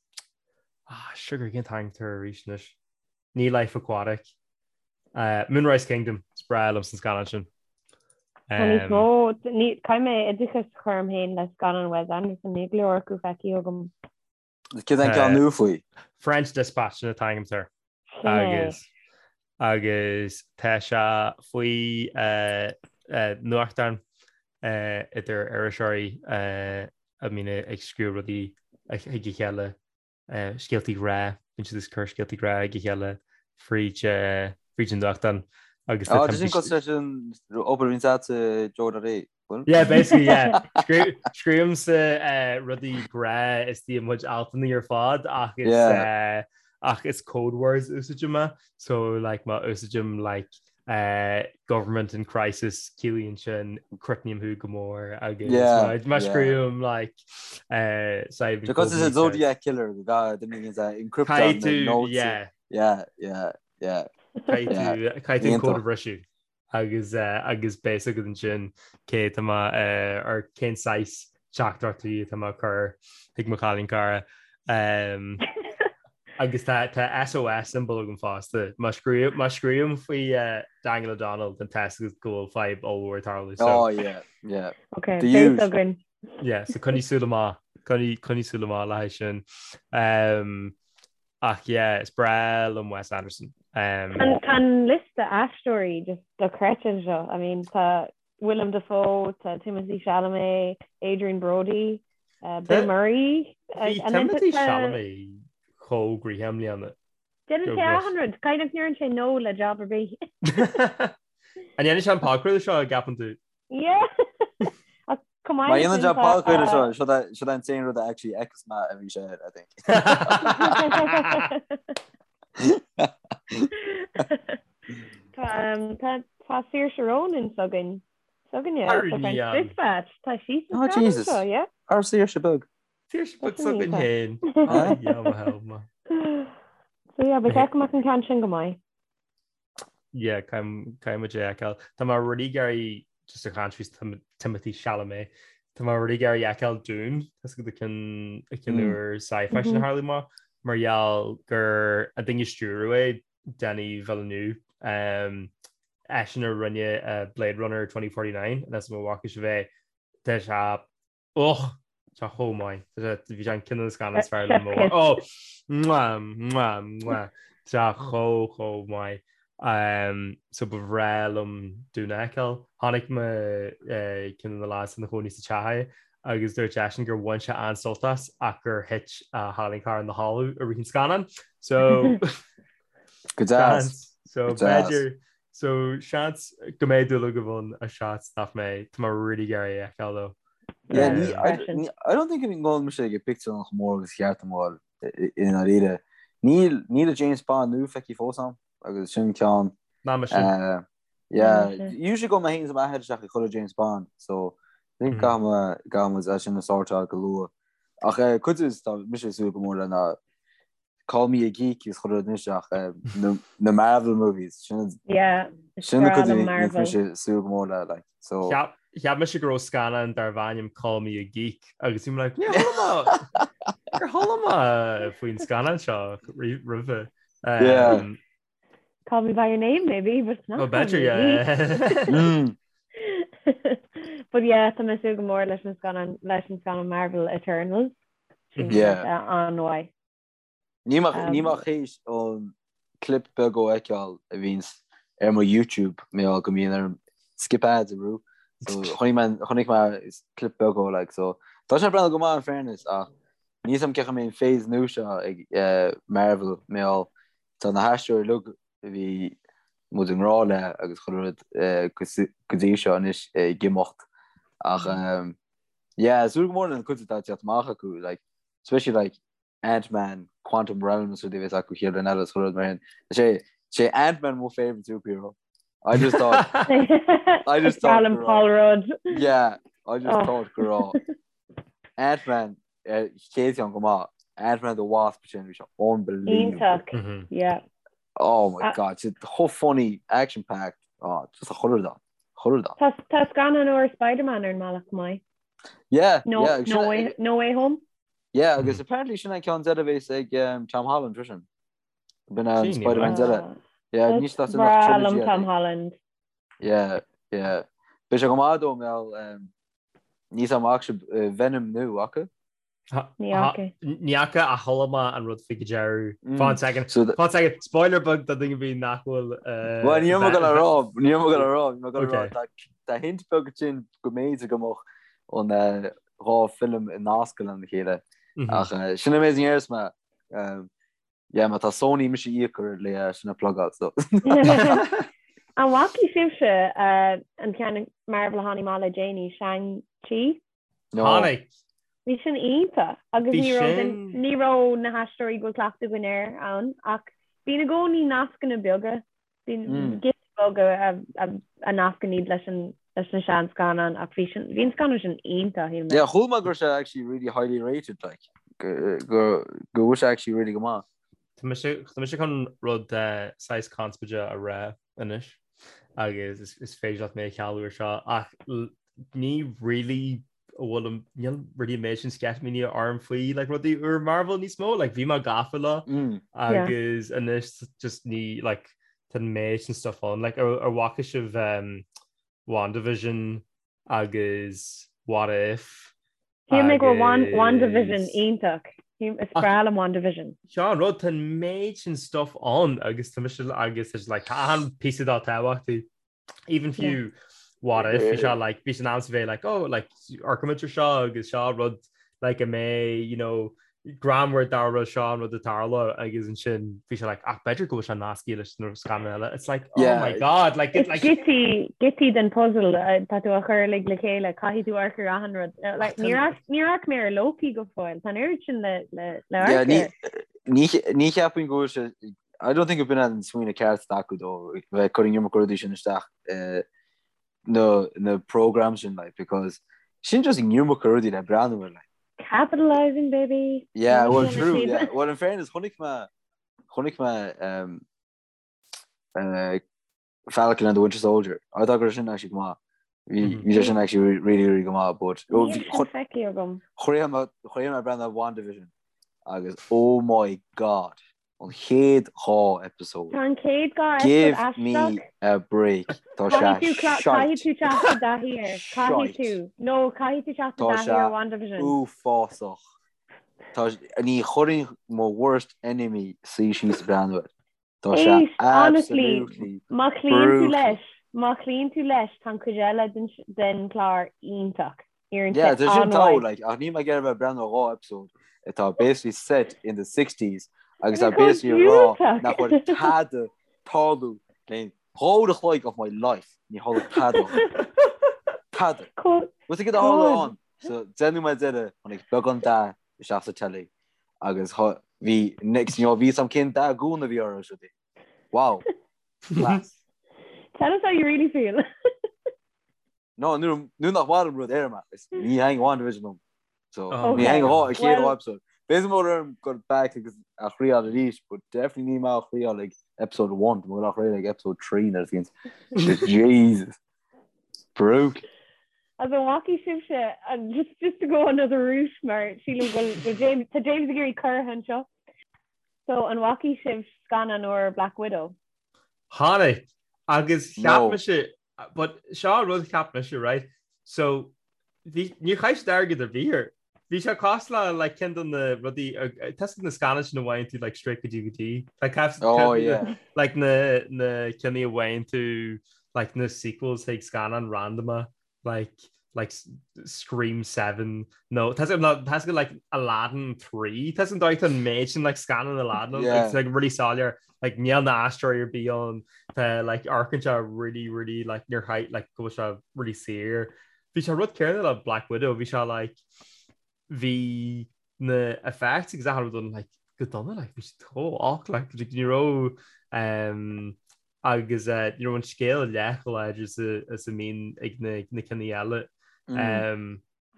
ah, sugar cén t-ainm air arís anois. Ní Life Aquatic. Uh, Moonrise Kingdom is breá liomsa an scannán sin. Tá níos mó caithfidh mé oideachas a chur orm féin le scannáin Wes Anderson níl go leor acu feicthe agam. Céard é an ceann nua faoi? French Dispatch sin an t-ainm air. Agus agus tá sé faoi nuachtán idir iriseoirí a mbíonn ag scríobh rudaí chuig a chéile, scéaltaí grá, bíonn siad ag cur scéaltaí grá chuig a chéile fríd fríd an nuachtán agus tá sin cosúil leis an obair a bhíonn agat Joe.ie. Yeah, basically, yeah. Scríobhaimse eh, rudaí grá istigh i mo chuid altanna ar fad ach is eh, ach is code words úsáidim é. So like má úsáidim like eh, government in crisis ciallaíonn sin crotnaím thú go mór agus má scríobhaim like eh, Because it's a Zodiac killer go encrypt the notes. Yeah. Yeah, yeah, yeah. Caithfidh tú an cód a bhriseadh. agus agus beidh a fhios agat ansin cé tá mé or cén saghas teachtaireachtaí atá mé ag cur chuig mo chailín cara. Um, agus tá tá SOS symbol agam fosta. Má scríobh má scríobhaim faoi uh, Daniel O'Donnell then tá a fhios agat go bhfuil fadhb ollmhór ag tarlú. So, oh yeah, yeah. Okay, beidh a fhios againn. Yeah, so coinnigh súil amach, coinnigh coinnigh súil amach le haghaidh sin. Um, Ach yeah, is breá liom Wes Anderson. Um, Tá an liosta aisteoirí just dochreidte anseo. I mean, tá Willem Dafoe, tá Timothée Chalamet, Adrien Brody, uh, Bill Murray. Bhí Timothée Chalamet chomh gnoitheach i mbliana. Déanann sé achan rud, kind of ndeireann sé no le job ar bith. An ndéanfaidh sé an podchraoladh seo an gceapann tú? Yeah. Ach chomh maith Má dhéanann sé podchraoladh seo, seo é seo é an t-aon rud a actually fheicfeas mé a bhí sé air, I think. Tá um, tá tá Saoirse Ronan s'againn. S'againne Ar sa French ní an. Dispatch. Tá sí sa Oh, scannán Jesus. seo, yeah. Ár Saoirse beag. Saoirse beag s'againn féin. Ah, yeah, mo help ma. So yeah, ba cheart go mbeadh an ceann sin go maith. Yeah, caithfidh muid é a fheiceáil. Tá mé really ag iarraidh just ag caint faoi Timothée Chalamet. Tá mé really ag iarraidh a fheiceáil Dune, tá a fhios agat an ceann úr sci-fi sin a tharla amach, mar gheall gur an duine a stiúradh é, Denis Villeneuve, um, eisean a rinne uh, Blade Runner 2049, and that's mo bhfaca sibh é, tá sé Och! Tá chomh maith. Bhí sé an ceann de na scannáin is fearr liom ó. Oh! Mwah! Mwah! Mwah! Tá chomh chomh maith. Um, so ba bhreá liom Dune a fheiceáil. Chonaic mé eh, ceann de na lads ina chónaí sa teach é agus dúirt eisean gur bhain sé an-sult as ach gur thit a chailín cara ina chodladh i rith an scannáin. So Go deas. So b'fhéidir So seans go mbeidh dúil agaibh ann ach seans nach mbeidh. Tá mé really ag iarraidh é a fheiceáil though. Yeah, ní, I, ní, I don't think go ngabhann mise ag pictiúrlann chomh mór agus cheart dom ghabháil i ndáiríre. Níl, níl a James Bond nua feicthe fós a'm agus sin ceann. Ná mise. Uh, yeah, usually gabhann mé féin is m'athair isteach ag chuile James Bond, so I think caithfidh mé, caithfidh muid é sin a sortáil go luath. Ach eh, cuid is tá mise ag súil go mór le ná Call me a geek is chuile rud anois ach na Marvel movies sin Yeah, sin na cuid a mise ag súil go mór le like so Cheap mise go raibh scannán darbh ainm Call Me a Geek agus bhí mé like níor chuala mé níor chuala mé faoin scannán seo roimhe. Yeah. Call me by your name maybe but it's not Well b'fhéidir yeah. Mm. But yeah tá mé ag súil go mór leis an scannán leis an scannán Marvel Eternals. Yeah. An-mhaith. Níl mé níl mé théis an clip beag a fheiceáil a bhíonns ar mo YouTube mé go mbíonn orm skip ads a bhrú. So chonaic mé chonaic mé clip beag ó like so tá sé breathnú go maith in fairness ach níl a fhios a'm cén chaoi a mbeidh an phase nua seo ag eh, Marvel mé tá na haisteoirí uilig a bhí muid i ngrá le agus chuile rud eh, go go dtí seo anois ag imeacht ach um, yeah, súil go mór lena cuid atá ag teacht amach acu like especially like Ant-Man, Quantum Realm is rudaí a bheas acu chéad rud eile is chuile rud mar sin. Is é is é Ant-Man mo favorite superhero. I just thought I just thought Alan Paul Rudd. Yeah, I just Oh. thought go raibh Ant-Man eh, chéad cheann go maith. Ant-Man the Wasp sin bhí sé unbelievable. Iontach. Mhm. Yeah. Oh my Ah. god, it's chomh funny, action packed. Oh, just a chuile rud ann. Chuile rud ann. Tá tá scannán úr Spider-Man ar an mbealach chomh maith. Yeah, No, yeah, agus no sin- way, no way home. Yeah, agus apparently sin an ceann deireadh a bheas ag um, Tom Holland freisin. B'in an Sin, Spider-Man deireadh. Ah, Yeah, That's ní sin breá nach trilogy liom Tom é. Holland. Yeah, yeah. Beidh sé go maith dó mé um, níl a fhios a'm an bhfaca sibh uh, Venom nua acu. Ní fhaca. Ní fhaca ach chuala mé an rud faoi go deireadh. Fan second. So the- Fan second. Spoiler beag do dhuine ar bith nach bhfuil uh, Well, ní raibh mé gonna rá, ní raibh mé gonna rá, ní raibh mé gonna rá, Okay. tá- tá hint beag sin go mb'fhéidir go mbeadh an eh, dhá film i nasc lena chéile. Mhm. Ach eh, sin amazing airs me. Um, yeah, má tá Sony mise íoc le eh, sin a plugáil, so. An bhfaca sibhse an ceann Marvel a tháinig amach le déanaí, Shang-Chi? No. Tháinig. Bhí sin iontach agus Bhí ní raibh sin. ní raibh na haisteoirí go bhfuil cleachtadh againn air ann ach bíonn i gcónaí nascanna beaga, bíonn giotaí beaga a nascann iad leis an leis na seanscannáin ach bhí sin bhí an scannán sin iontach, shíl mé. Yeah, chuala mé go raibh sé actually really highly rated like go go go bhfuil sé actually really go maith. Tá mise tá mise chun rud saghas conspóideach a rá anois agus is is féidir leat mé a chealú ar seo ach ní really a bhfuil níl really an méid sin sceitimíní orm faoi like rudaí úr Marvel níos mó like bhí mé gafa leo Mm. agus anois just ní like tá an méid sin stuff ann like ar ar bhfaca sibh um, WandaVision agus What If Shíl mé go raibh WandaVision iontach. Is breá liom WandaVision. Seo an rud, tá an méid sin stuff ann agus tá mise agus is like tá achan píosa dá tábhachtaí. Even fiú What If bhí sé like bhí sé in am sa bheith like oh like amharcfaimid ar seo agus seo rud like a mbeidh you know greannmhar dá rud seo an rud a tharla agus ansin bhí sé like ach b'fhéidir go bhfuil sé nasctha leis na scannáin eile. It's like oh Yeah. my god like it Is like giotaí giotaí den puzzle tá tú a chur uilig le chéile, caithfidh tú amharc ar achan rud. Like, Ach níor tá- amharc níor amharc mé ar Loki go fóill, tá an oiread sin le le le Yeah, amharc ní air. ní ní cheapaim go bhfuil sé I don't think gurb in an smaoineamh ceart acu dó bheith ag cur an iomarca rudaí sin isteach eh, na na programs sin like because sin just an iomarca rudaí le breathnú air like. Capitalizing baby. Yeah, well true, yeah. Well in fairness chonaic mé chonaic mé um, uh, Falcon and the Winter Soldier. I thought go raibh sin actually go maith. Bhí bhí sé sin actually really really go maith but oh, Níl sin feicthe agam. Chríochnaigh mé chríochnaigh mé ag breathnú ar WandaVision agus oh my god An chéad 2 episode. Tá an chéad 2 episode Give aisteach. me a break. Tá sé Caithfidh tú shite. caithfidh tú teacht i dtaithí air. Caithfidh Shite. tú. No, caithfidh tú teacht i Tá dtaithí sé ar WandaVision. uafásach. Tá ní chuirfinn mo worst enemy suí síos ag breathnú air. Tá sé Éist, honestly, absolutely má chloíonn tú brutal. leis, má chloíonn tú leis, tá an chuid eile den den chlár iontach. Éiríonn Yeah, sé tá sin togha, an-mhaith. like, ach níl mé ag iarraidh a bheith ag breathnú ar 2 episode atá basically set in the 60s agus Tá tá chomh basically ag rá diúltach. nach bhfuil tada tarlú le 2 uair a chloig of my life, ní tharla tada. Tada. Chomh Bhfuil tú ag tharla chomh ann? So déanadh mé deireadh, tháinig beagán dath isteach sa telly agus bhí next you know, bhí sam cén dath gúna a bhí orthu siúd. Wow. Class. Tell us how you really feel. No, nuair nach maith liom rud déarfaidh mé, ní thaitin WandaVision liom. So, Oh. ní thaitin an chéad Well- episode. B'fhéidir go mbeidh orm go back agus a thriail arís, but definitely níl mé á thriail ag episode 1, tá mé á thriail ag episode 3 nuair a bhíonn. Jesus. Brutal. As an bhfaca sibhse, and just, just to go another route mar sílim go bhfuil James, tá James ag iarraidh cur anseo. So an bhfaca sibh scannán úr Black Widow? Tháinig agus cheap No. mise But seo an rud cheap mise, right? So bhí níor chaith siad airgead ar bith air. Bhí sé cosúil le like ceann de na rudaí tá a fhios agat na scannáin sin a bhfaigheann tú like straight go DVD. Like have Oh yeah. like na na cinn a bhfaigheann tú like na sequels chuig scannán random like like Scream 7 nó tá tá like Aladdin 3 tá an dóigh an méid sin like scannán Aladdin Yeah. it's like really soiléir like níl na aisteoirí ar bith ann tá like amharcann sé really really like níor chaith like go bhfuil sé really saor bhí sé rud céanna le Black Widow bhí sé like bhí na effects agus achan rud ann like go dona like bhí sé chomh olc like ní raibh um, agus ní raibh an scéal leath chomh láidir is a mbíonn ag na cinn eile.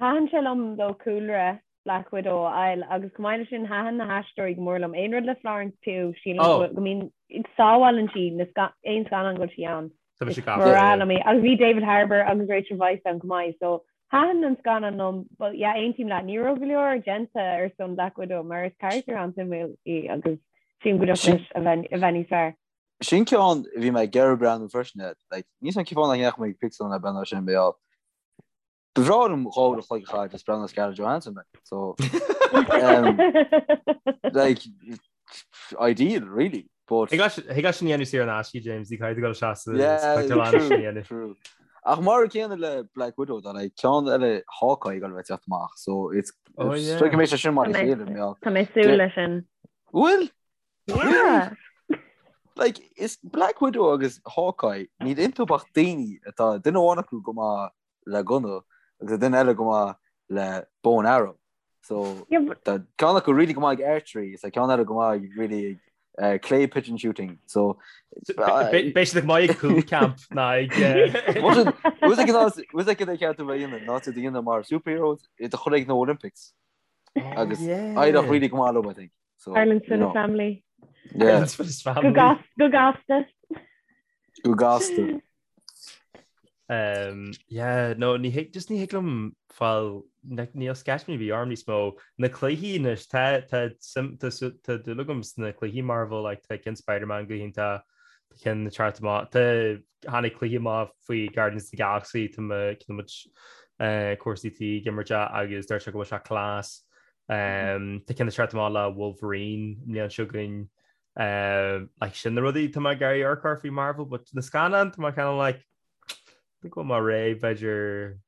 Thaitin sé liom though cúlra Black Widow a fháil agus chomh maith leis sin thaitin na haisteoirí go mór liom. Aon rud le Florence Pugh sílim go mbíonn sábhálann sí na aon scannán go bhfuil sí ann. Tá mise Is gafa. breá liom í. Agus bhí David Harbour agus Rachel Weisz ann chomh maith so thaitin an scannán liom but yeah aontaím leat ní raibh go leor déanta ar son Black Widow mar is carachtar an-suimiúil í agus sílim go dtiocfadh leis a bheith níos fearr. Sin ceann a bhí mé ag iarraidh breathnú freisin air. Like, níl a fhios agam cén fáth nach ndeachaigh mé ag pictiúrlann le breathnú air sin beo. Ba bhreá liom 2 uair a chloig a chaitheamh just breathnú ar Scarlett Johansson, like. So, um, like, ideal, really. But Thig leat sin a dhéanamh saor in aisce, James, ní caithfidh tú dul isteach sa Yeah, pictiúrlann true, sin a dhéanamh. true. Ach mar an céanna le Black Widow, tá like, ceann eile Hawkeye ag dul a bheith ag teacht amach, so it's Oh, yeah. so go mbeidh sé sin mar a Tá mé- chéile, mé. Tá mé ag súil leis sin. Bhfuil? Yeah. Like, is Black Widow agus Hawkeye, níl iontu ach daoine atá duine amháin acu go maith le gunna agus duine eile go maith le bow and arrow. So tá ceann acu really go maith ag archery, is tá ceann eile go maith really ag clay pigeon shooting. So Beidh siad go maith ag Cúl Camp ná ag Was ag an ceart a dhéanamh ná a dhéanamh mar superheroes iad a chur ag na Olympics. Agus éireodh really go maith leo, I think. So, Ireland's you know. family. Yeah. Ireland's fittest family. Go gasta. Go gasta. Um, yeah, no, ní thig, just ní thig liom fáil, níl sceitimíní ar bith orm níos mó. Na cluichí anois, tá, tá, sim, tá, tá dúil agam sna cluichí Marvel, like, tá cinn Spider-Man go hiontach, tá cinn ag teacht amach, tá, tháinig cluiche amach faoi Guardians of the Galaxy, tá mo, tá muid, eh, comharsaí tí ag imirt é agus deir sé go bhfuil sé class. Um, tá cinn ag teacht amach le Wolverine an bhliain seo chugainn. Um, like sin na rudaí tá mé ag iarraidh amharc air faoi Marvel, but na scannáin tá mé kind of like think bhfuil mé réidh b'fhéidir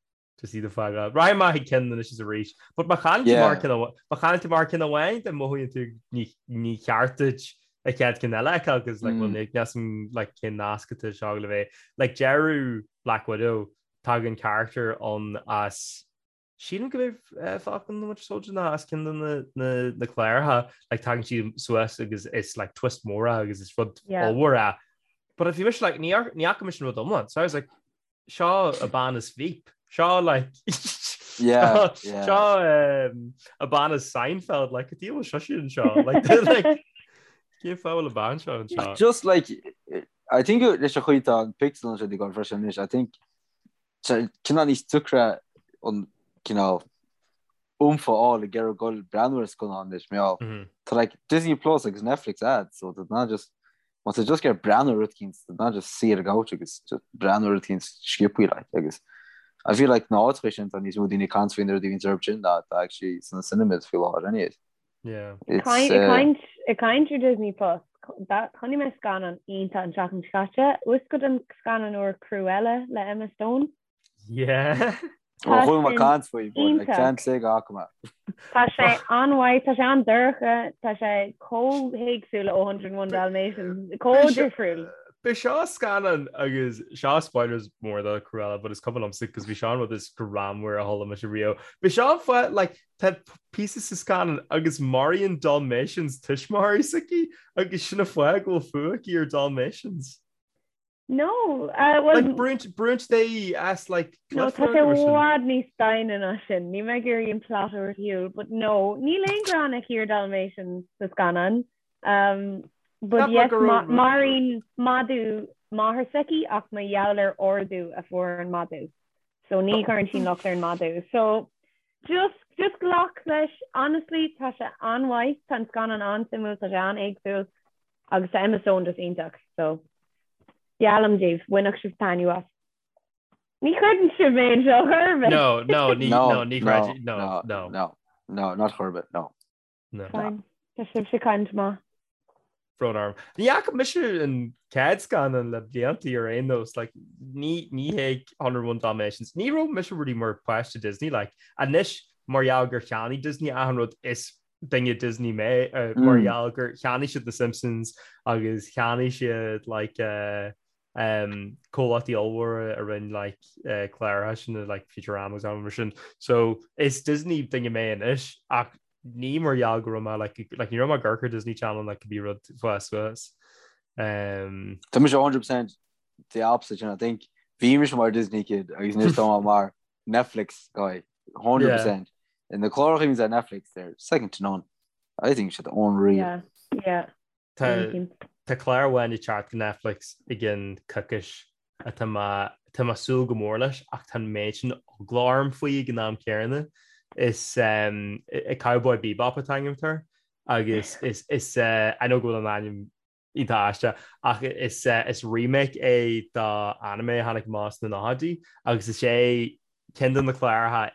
just iad a fhágáil. Raghaidh mé chuig ceann anois is arís. But má chailleann tú mar ceann amháin, má chailleann tú mar ceann amháin, then mothaíonn tú ní ní ceart duit an chéad ceann eile a fheiceáil, cos like, well, níl a fhios agam like cén nasc atá seo le bheith. Like deireadh Black Widow, tagann character ann as Sílim go b'é Falcon and the Winter Soldier ná as ceann de na cláracha, like tagann sí suas agus is like twist mór é agus is rud ollmhór é. But bhí mise like ní fhaca mise an rud iomlán, so I was like seo an bhean as Veep, seo like yeah, yeah. seo um, an bhean as Seinfeld, like cad a bhfuil seo sin seo like like cén fáth a bhfuil an bhean seo anseo? Just like I think leis an chaoi tá an pictiúrlann seo ag dul freisin anois, I think cineál níos deacra an cineál oomph a fháil ag iarraidh dul breathnú ar scannán anois mar tá like Disney Plus agus Netflix agat so tá ná just má tá just ag iarraidh breathnú ar rud eicínt tá ná just suí ar an gcouch agus just breathnú ar rud eicínt sciobthaí like agus I feel like na áiteacha sin tá níos mó daoine ag caint faoi na rudaí a bhíonn orthu sin ná tá actually sna cinemas faoi láthair anyways. Yeah. It's, uh, Ag caint ar Disney Plus, chonaic mé scannán iontach an tseachtain seo caite, bhfuil fhios agat an scannán úr Cruella le Emma Stone? Yeah. Ó chuala mé caint faoi, but like ceann sé go fhaca mé. Tá sé an-mhaith, tá sé an-dorcha, tá sé chomh héagsúil ó 101 Dalmatians, chomh difriúil. B'é seo scannán agus seo spoilers mór do Cruella, but is cuma liomsa cos bhí seo an rud is greannmhar a chuala mise riamh. B'é seo an fáth like Tá píosa sa scannán agus maraíonn Dalmatians tuismitheoirí s'aici agus sin an fáth go bhfuil fuath aici ar Dalmatians. No, uh, well, Like brúnn brúnn sí as like No, tá sé i bhfad níos doimhne ná sin. Níl mé ag iarraidh an plot a thabhairt ar shiúl, but no, níl aon ghráin aici ar Dalmatians sa scannán. Um, but yes, maraíonn madadh máthair s'aici ach mar gheall ar ordú a fuair an madadh. So ní chuireann sí locht ar an madadh. So Just, just glac leis, honestly, tá sé an-mhaith, tá an scannán an-suimiúil, tá sé an-éagsúil agus tá Emma Stone just iontach, so geallaim daoibh, bainfidh sibh taitneamh as. Ní chreideann sibh mé anseo chor ar bith. No, no, ní, no, ní chreidim, no, no, no. No, no, not chor ar bith, no. No. Fine. Tá sibhse ag caint maith. Brón orm. Ní fhaca mise an chéad scannán le blianta ar aon nós, like, ní, ní hé 101 Dalmatians. Ní raibh mise really mar páiste Disney, like, anois mar gheall gur cheannaigh Disney achan rud is duine Disney mé, uh, mar gheall gur cheannaigh siad The Simpsons agus cheannaigh siad like, uh, um, comhlachtaí ollmhóra a rinne like, uh, cláracha sin like Futurama agus mar sin. So is Disney duine mé anois ach ní mar gheall go raibh mé like, like, ní raibh mé ag amharc ar Disney Channel like, cibé rud fás suas. Um, Tá mise 100% the opposite and I think bhí mise mar Disney kid agus anois tá mé mar Netflix guy 100% yeah. And na cláracha a bhíonns ar Netflix they're second to none. I think siad unreal. Yeah, yeah. Tá clár amháin ag teacht go Netflix i gcionn coicís atá mé tá mé ag súil go mór leis ach tá an méid sin eagla orm faoi ag an am céanna. Is Cowboy Bebop atá ainm air agus is is I know go bhfuil an ainm iontach aisteach ach is is remake é do anime a tháinig amach sna nóchaidí agus is é ceann de na cláracha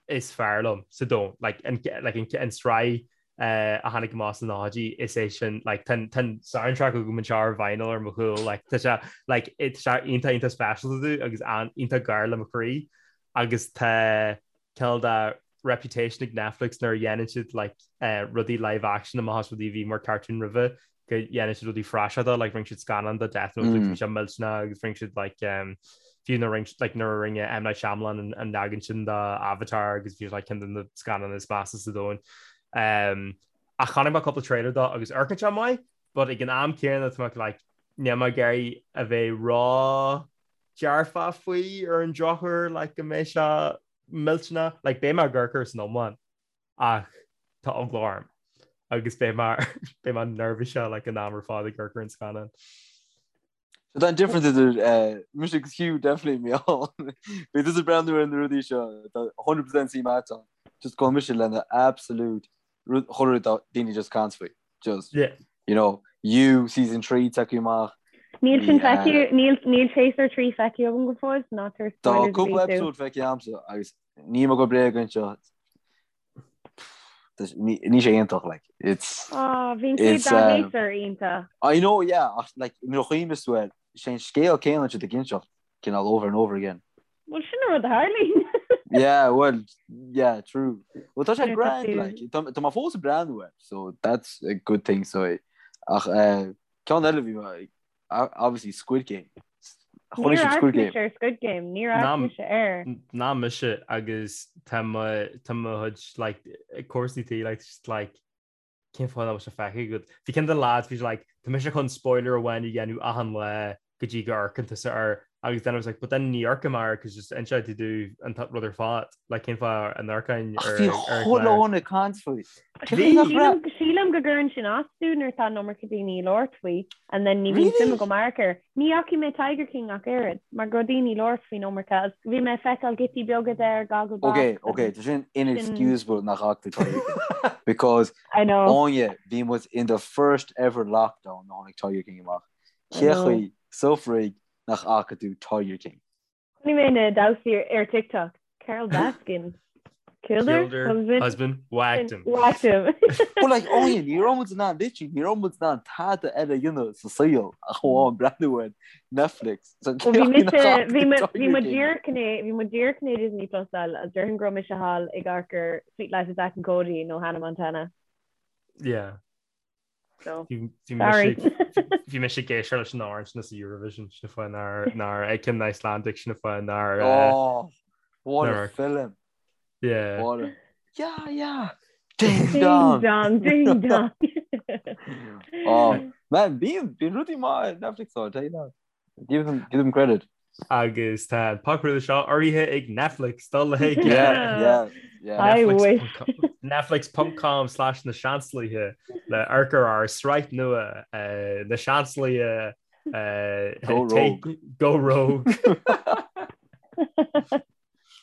is fearr liom sa domhan. Like, an, like, an, an sraith uh, a tháinig amach sna nóchaidí, is é sin, like, tá an, tá an soundtrack agam anseo ar vinyl ar mo chúl, like, tá sé, like, tá sé iontach, iontach speisialta domh agus an, iontach gar le mo chroí agus tá cineál de reputation ag Netflix nuair a dhéanann siad, like, uh, rudaí live action amach as rudaí a bhí mar cartoon roimhe. go dhéanann siad rudaí praiseach like rinne siad scannán de Death Note mm. bhí sé millteanach agus rinne siad like um, fiú nuair rinne like nuair a rinne M Night Shyamalan an, an leagan sin de Avatar agus bhí like ceann de na scannáin is measa sa domhan. Um, ach chonaic mé cúpla trailer dó agus amharcann sé maith, but ag an am céanna tá mé like níl mé ag iarraidh a bheith ró-dearfach faoi ar an drochuair like go mbeidh sé millteanach like beidh mé ag amharc air san iomlán. Ach tá eagla orm agus beidh mé beidh mé neirbhíseach like an am ar fad ag amharc ar an scannán. So tá an difference idir eh, mise agus Hugh definitely mé ann. Bhí tusa ag breathnú ar na rudaí seo tá 100% suim agat ann. Just go mise lena absolute rud chuile rud atá daoine just caint faoi. Just Yeah. you know, You season 3 tagtha amach. Níl sin Bhí, eh, feicthe, níl níl séasúr 3 feicthe agam go fóill, so ná tabhair Tá spoilers a cúpla bhí tú. episode feicthe agamsa agus Níl mé ag gabháil bréag anseo. Níl sé iontach like it's Ah, bhí an chéad it's dá um, shéasúr iontach. I know yeah ach like nuair a chuimhníos tú air sé an scéal céanna siad ag inseacht cineál over and over again. Bhuel sin an rud a tharlaíonn. Yeah well yeah true. Well tá sé Nuair atá grand tú like tá tá mé fós ag breathnú air so that's a good thing so ach eh ceann eile bhí mé obviously Squid Game. Chonaic sibh Níor Squid amharc Game. mise ar Squid Game, níor amharc Ná mise air. ná mise agus tá mo tá mo chuid like comharsana tí like just like cén fáth nach bhfuil sé feicthe agat. Bhí ceann de na lads bhí sé like tá mise chun spoiler amháin a dhéanamh achan lá go dtí go amharcann tusa air agus then I was like but then ní amharcfaidh mé air cos just inseoidh tú domh an rud ar fad like cén fáth a n-amharcfainn Ach ar bhí ar an chuile gclár. dhuine ag caint faoi. Cén Bhí! fáth nach raibh? Sílim sílim go gcuireann sin as domh nuair atá an iomarca daoine ag labhairt faoi and then ní bhíonn suim Really? agam amharc air. Ní fhacaigh mé Tiger King ach oiread mar go raibh daoine ag labhairt faoin iomarca agus bhí mé ag feiceáil giotaí beaga de ar Gogglebox Ok, ok, agus tá sin sin inexcusable nach bhfaca tú Tiger King. Because I know. Áine, bhí muid in the first ever lockdown nuair a tháinig Tiger King amach. I Cé know. chaoi sa fhrig nach fhaca tú Tiger King? Chonaic mé na damhsaí ar TikTok. Carole Baskin. Killed her Killed her husband. husband, whacked him. Whacked him. But like Áine, ní raibh muid in ann literally ní raibh muid in ann tada eile a dhéanamh sa saol ach amháin breathnú ar Netflix. So Bhí cé chaoi mise nach fhaca bhí tú mo bhí Tiger mo King? díreach in é bhí mo díreach in Disney Plus fháil agus déarfainn go raibh mise thall ag amharc ar Suite Life of Zack and Cody nó Hannah Montana. Yeah. So, Bhí sorry. bhí mise ag éisteacht leis an amhrán sin sa Eurovision sin an fáth nár nár ag an Icelandic sin an fáth nár Oh, what a nár film. yeah. What a Yeah, yeah. Ding Ding dong. dong, ding dong. Oh, man, bíonn bíonn rudaí maith ar Netflix though, I tell you that. Give them give them credit. Agus tá an podchraoladh seo urraithe ag Netflix dul le Yeah, yeah, yeah. I wish. Netflix.com slash na Seansálaithe le amharc ar ár sraith nua eh, na Seansálaithe eh, Go take- rogue. Go Rogue.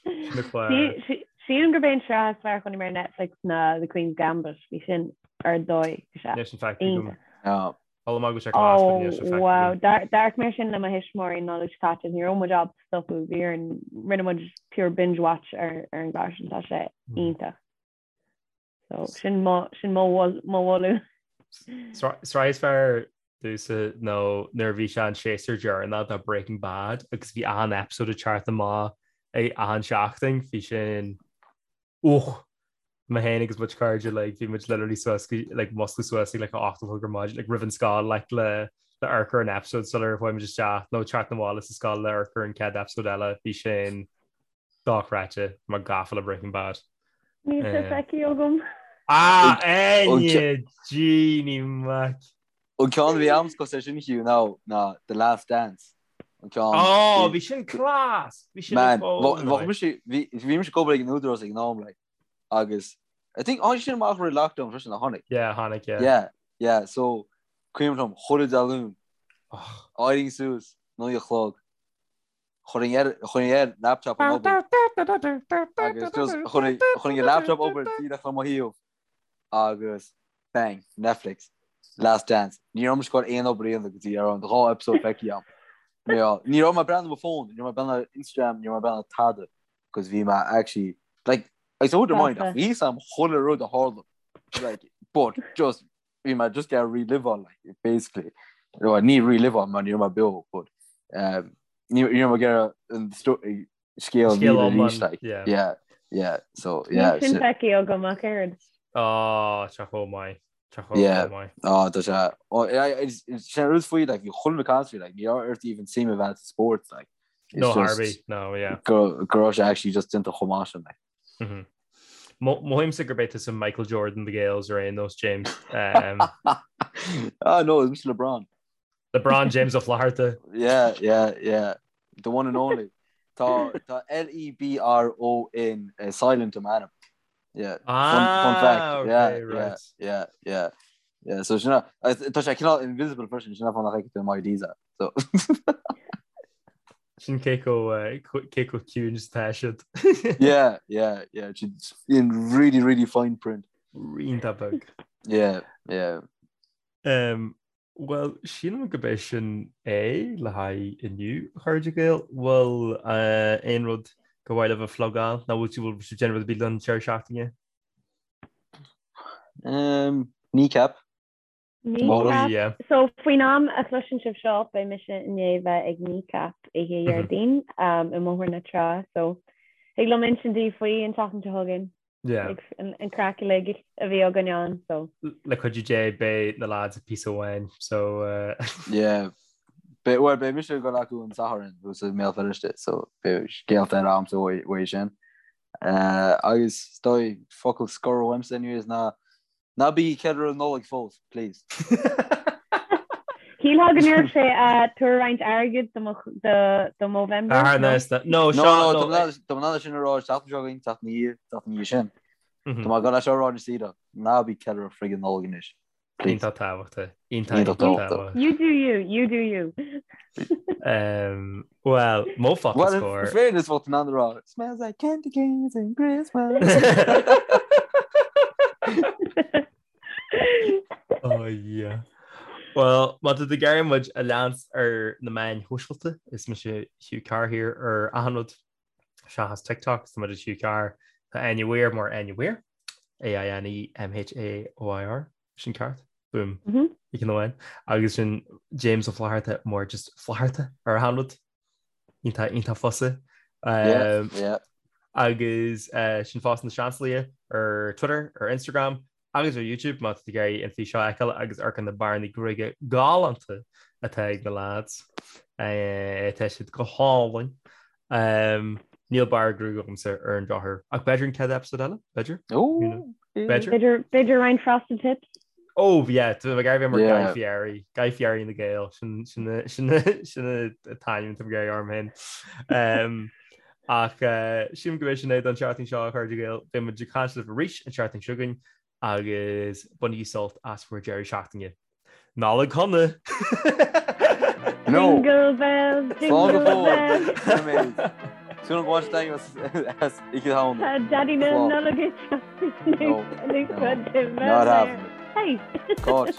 Na cláir. Sílim gurb é an sraith is fearr a chonaic mé ar Netflix ná The Queen's Gambit. Bhí sin ar dóigh. Níl sin feicthe agam. Iontach. Yeah. Chuala mé go bhfuil sé class but níl sé Oh feicthe wow, agam. D'amharc mé sin le mo thuismitheoirí an Nollaig seo caite, ní raibh muid ábalta stopadh, bhí orainn, rinne muid pure binge watch ar ar an gclár sin, tá sé iontach. So sin mo sin mo mo mholadh. Sraith is fearr domhsa nó nuair a bhí sé an séasúr deireanach de Breaking Bad agus bhí achan episode ag teacht amach ag achan seachtain, bhí sin Och! Mé féin agus mo chuid cairde like bhí muid literally suas go like muscladh suas ag like a 8 a chlog ar maidin like roimh an scoil like le le amharc ar an episode sular chuaigh muid isteach nó teacht na bhaile sa scoil le amharc ar an chéad episode eile bhí sin dochreidte mé gafa le Breaking Bad. Níl sé Eh. feicthe agam. Ah An Áine Jeannie Mac. An ceann a bhí a'msa cosúil leis sin Hugh ná ná The Last Dance. An ceann Oh, bhí sin class! Bhí sin Man, ar fóin, bheadh mise bhí bhí mise ag obair ag an Údarás ag an am like agus I think tháinig sin amach roimh lockdown freisin a tháinig. Yeah, tháinig, yeah. Yeah, yeah, so cuimhin liom chuile Dé Luain Oh. éirím suas 9 a chlog chuirfinn ar chuirfinn ar laptop an obair agus just chuirfinn chuirfinn an laptop obair díreach le mo thaobh agus bang, Netflix, Last Dance. Ní raibh mise ag goil aon obair a dhéanamh go dtí ar an dhá episode feicthe agam. Ní raibh mé ag breathnú ar mo phone, ní raibh mé ag breathnú ar Instagram, ní raibh mé ag breathnú ar tada, cos bhí mé actually, like, I wouldn't mind, ach bhí fhios agam chuile rud a tharla, like, but just, bhí mé just ag relive on, like, basically. Well, ní relive on, mar ní raibh mé beo, but um, ní raibh mé ag iarraidh an scéal Scéal míle iomlán, arís, like, yeah. yeah, yeah, so, yeah, Níl sin so- feicthe agam ach oiread. Oh, tá chomh maith. Tá chomh Yeah. maith. Ah, tá sé. Oh, sin rud faoi, like, bhí chuile rud caint faoi, like, ní raibh ort even suim a bheith sa spórt, like. It's No just Harvey, no, yeah. Go go raibh sé actually just déanta chomh maith sin, like. Mhm. Mothaímse gurb é tusa Michael Jordan the Gaels ar aon nós, James. Um, Ah, no, it's Mr. LeBron. LeBron James Ó Flatharta. Yeah, yeah, yeah. The one and only. Tá tá L-E-B-R-O-N uh, silent i m'ainm. Yeah. Fun, fun Ah, fact. okay, Yeah, yeah, right. yeah, yeah. Yeah, so sin tá sé cineál invisible freisin sin fáth nach bhfeiceann tú in IDs so Sin cé chomh eh, cé chomh ciúin is atá siad. yeah, yeah, yeah. It's in really, really fine print. Iontach beag. Yeah, yeah. Um, Bhuel, sílim gurb é sin é le haghaidh inniu, a chairde Gael. Bhfuil aon rud gur mhaith libh a phlugáil nó bhfuil sibh ag déanamh rud ar bith don deireadh seachtaine? Um, Kneecap. Kneecap. Yeah. So faoin am a chloiseann sibh seo beidh mise i ndiaidh bheith ag Kneecap oíche Dhéardaoin um, i mBóthar na Trá. So thig liom insint daoibh faoi an tseachtain seo chugainn. Yeah. An craic uilig a bhí againn ann, so. Le cuidiú Dé beidh na lads ag píosa amháin, so. Yeah. Beidh, well, beidh mise ag dul acu an Satharn thuas i mBéal Feirste, so beidh scéalta eile agamsa uaidh sin. Agus is dóigh focal scoir uaimse anyways ná ná bí ag ceiliúradh Nollaig fós, please. Shílfeá go ndéarfadh sé tabhair roinnt airgid do mo do Movember. Ah, no? No, No, seo, no, no. tá mé in ann sin a rá seachtain seo chugainn, seachtain ina dhiaidh, seachtain ina dhiaidh sin. Mhm. Tá mé ag dul é seo a rá anois saoire, ná bí ag ceiliúradh friggin Nollaig anois. Please. Iontach tábhachtach. Iontach, Iontach iontach tábhachtach. tábhachtach. You do you, you do you. Um, well, mo focal Well, scoir. in fairness, bheadh tú in ann a rá, Smells like candy canes and Christmas. Oh yeah. Well, má tá tú ag iarraidh muid a leanstan ar na meáin shóisialta, is mise Hugh Carr here ar achan rud seachas TikTok, tá muid Hugh Carr, tá Áine Mhaoir mar Áine Mhaoir, A-I-N-E-M-H-A-O-I-R, sin ceart, boom, i gceann amháin. Agus sin James Ó Flatharta mar just Flatharta ar achan rud. Iontach, iontach fusa. Yeah, yeah. Agus sin fosta na Seansálaithe ar Twitter, ar Instagram agus ar YouTube má tá tú ag iarraidh an físeán a fheiceáil agus amharc ar na bearnaí gruaige galánta atá ag na lads. Tá siad go hálainn. Níl barr gruaige agamsa ar an drochuair. Ach b'fhéidir an chéad episode eile? B'fhéidir? B'fhéidir. B'fhéidir roinnt frosted tips? Oh yeah, tá mé ag iarraidh bheith mar Guy Fieri, Guy Fieri na Gael, sin sin sin sin an t-ainm atá mé ag iarraidh orm féin. Ach sílim gurb é sin é don tseachtain seo a chairde Gael, beidh muid ag caint libh arís an tseachtain seo chugainn agus bainigí sult as bhur deireadh seachtaine. Nollaig shona! No! Jingle bells, jingle bells. Súil go bhfuil as Oíche Shamhna. Tá Daddy na Slán. Nollag ag teacht No, anuas no. go Not happening. Hey! Cáit.